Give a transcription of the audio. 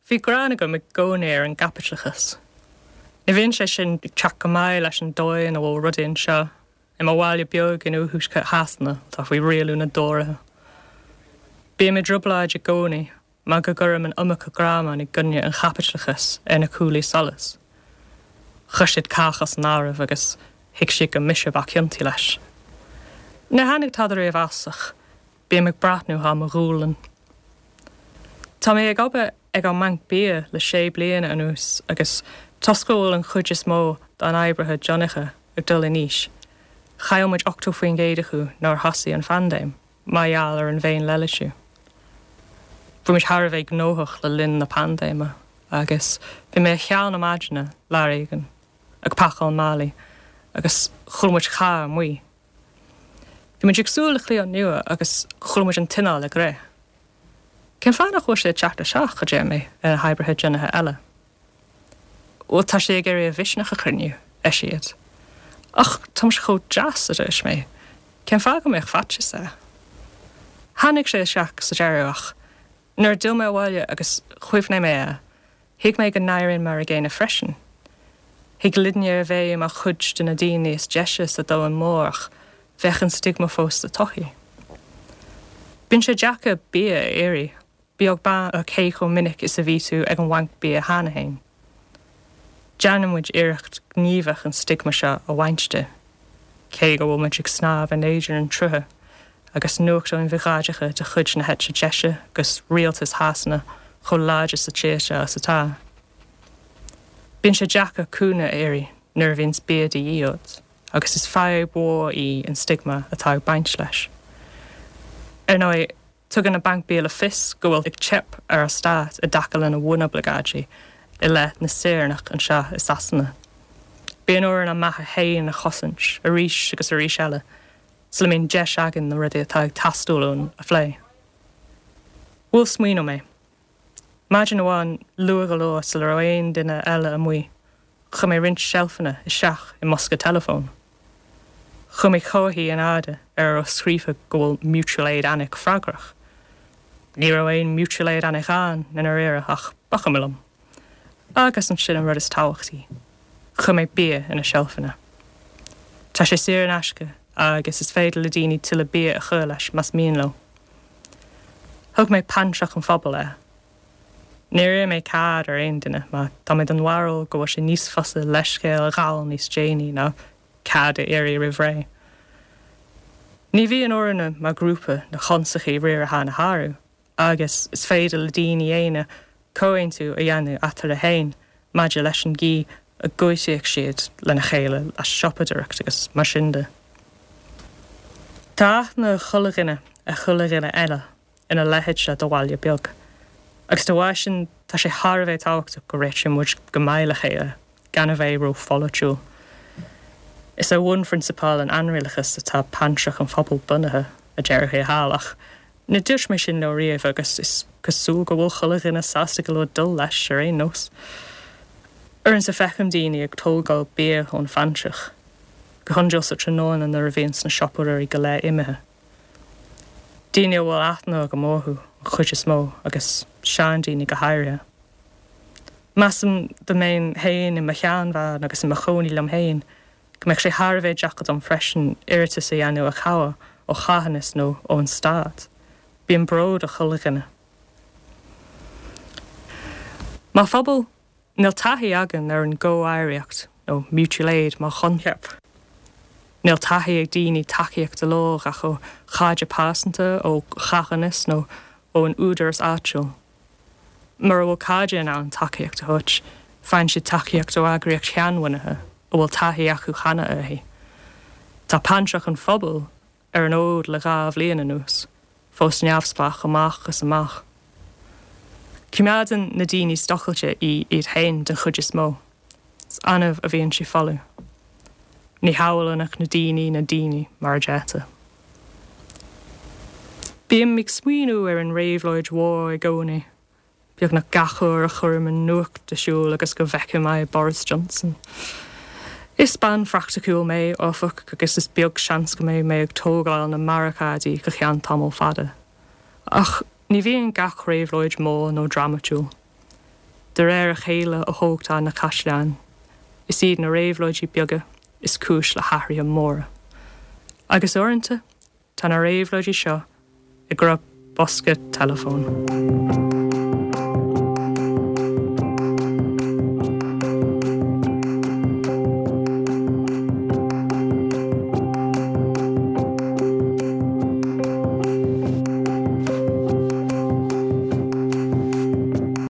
Bhí gráin agam i gcónaí ar an gcaipitleachas. Ní bhíonn sé sin ag teacht go maith leis an dóigh ina bhfuil rudaí anseo, i mo bhaile beag in oirthuaisceart Shasana atá faoi rialú na dTóraithe. Bím i dtrioblóid i gcónaí mar go gcuirim an iomarca greamán i gcoinne an chaipitleachais ar na cuaillí solais. Chuir siad cách as an áireamh agus thuig siad gur mise ba chiontaí leis. Níor tháinig tada riamh as ach bím ag breathnú thar mo ghualainn. Tá mé ag obair ag an mbanc bia le sé bliana anuas agus toisc go bhfuil an chuid is mó dár n-oibrithe deonacha ag dul in aois, chaill muid 80% acu nuair a thosaigh an phaindéim mar gheall ar an bhféin-leithlisiú. Bhí muid thar a bheith gnóthach le linn na paindéime agus bhí mé ar cheann na maidine lá éigin ag pacáil málaí agus chuala muid carr amuigh. Bhí muid ag súil le cliant nua agus chuala muid an t-inneall ag rith. Cén fáth nach bhfuil sé ag teacht isteach, a deir mé ar na hoibrithe deonacha eile. Bhuel, tá sé ag iarraidh a mhisneach a chruinniú, ar siad. Ach tá muid chomh deas, a dúirt mé. Cén fáth go mbeadh faitíos air? Tháinig sé isteach sa deireadh ach nuair a d'fhill mé abhaile agus chuimhnigh mé air, Thuig mé go n-éirínn mar a gcéanna freisin. Thig linne a bheith mar chuid de na daoine is deise sa domhan mór ach bheadh an stigma fós sa tsochaí. Bíonn sé deacair bia a iarraidh, beag beann ar cé chomh minic is a bhí tú ag an bhanc bia cheana féin. Déanann muid iarracht ghníomhach an stigma seo a bhaint de. Cé go bhfuil muid ag snámh in éadan an tsrutha agus nuachtáin bhiogáideacha de chuid na heite deise agus rialtas Shasana chomh láidir sa tír seo is atá, bíonn sé deacair cúnamh a iarraidh nuair a bhíonns bia de dhíth ort agus is fadhb mhór í an stigma atá ag baint leis. Ar ndóigh, Tugann an Banc Bia le fios go bhfuil ag teip ar an stát i dtaca lena bhunoibleagáidí i leith na saoránach anseo i Sasana. Bíonn orainn ár mbeatha féin a chosaint arís agus arís eile sula mbíonn deis againn na rudaí atá ag teastáil uainn a phlé. Bhuail smaoineamh mé. Maidin amháin, luath go leor sula raibh aon duine eile amuigh, Chuir mé roinnt seilfeanna isteach i mbosca teileafóin. Chuir mé comharthaí in airde ar a raibh scríofa go bhfuil Mutual Aid Alnwick freagrach. Ní raibh aon Mutual Aid Alnwick ann i ndáiríre ach ba chuma liom. Agus ansin an rud is tábhachtaí, chuir mé bia ar na seilfeanna. Tá sé saor in aisce agus is féidir le daoine tuilleadh bia a chur leis más mian leo. Thug mé Pantrach an Phobail air. Níor iarr mé cead ar aon duine mar tá mé den bharúil go bhfuil sé níos fusa leithscéal a ghabháil níos déanaí ná cead a iarraidh roimh ré. Ní bhíonn orainne mar ghrúpa na constaicí riaracháin a shárú agus is féidir le daoine aonair comhaontú a dhéanamh eatarthu féin maidir leis an gcaoi a gcuideoidh siad lena chéile le siopadóireacht agus mar sin de. Tá aithne ag chuile dhuine ar chuile dhuine eile. ina leithéid seo de bhaile beag. Agus dá bharr sin, tá sé thar a bheith tábhachtach go réitíonn muid go maith le chéile, gan a bheith ró-pholaitiúil. Is ar bhunphrionsabail an ainrialachais atá Pantrach an Phobail bunaithe, a déarfaí thall, ach ní dúirt mé sin leo riamh agus is cosúil go bhfuil chuile dhuine sásta go leor dul leis ar aon nós. Uaireanta feicim daoine ag tógáil bia ón phantrach, go hiondúil sa tráthnóna nuair a bhíonns na siopadóirí go léir imithe. Daoine a bhfuil aithne agam orthu an chuid is mó agus seandaoine go háirithe. Measaim dá mbeinn féin i mo sheanbhean agus i mo chónaí liom féin go mbeadh sé thar a bheith deacair dom freisin iarratas a dhéanamh ar chabhair ó charthanas nó ón stát. Bíonn bród ar chuile dhuine. Mar phobal, Níl taithí againn ar an gcomhoidhreacht nó mutual aid mar choincheap. Níl taithí ag daoine tacaíocht a lorg ach ó chairde pearsanta, ó charthanas nó ón údaras áitiúil. Mura bhfuil cairde in ann tacaíocht a thabhairt, faigheann siad tacaíocht ó eagraíocht sheanbhunaithe a bhfuil taithí acu cheana uirthi. Tá Pantrach an Phobail ar an fhód le 2 bhliain anuas, fós neamhspleách amach is amach. Coimeádann na daoine streachailte í iad féin den chuid is mó. Is annamh a bhíonn sí folamh. Ní shamhlaíonn ach na daoine na daoine, mar a deirtear. Bím ag smaoineamh ar an réabhlóid mhór i gcónaí. Beagnach gach uair a chuirim an nuacht ar siúl agus go bhfeicim aghaidh Boris Johnson. Is bean phraiticiúil mé, áfach, agus is beag seans go mbeidh mé ag tógáil na mbarricáidí go ceann tamall fada. Ach ní bhíonn gach réabhlóid mór nó drámatúil. De réir a chéile a thógtar na caisleáin. Is iad na réabhlóidí beaga is cúis le hathruithe móra. Agus uaireanta, tá na réabhlóidí seo i gcruth bosca teileafóin.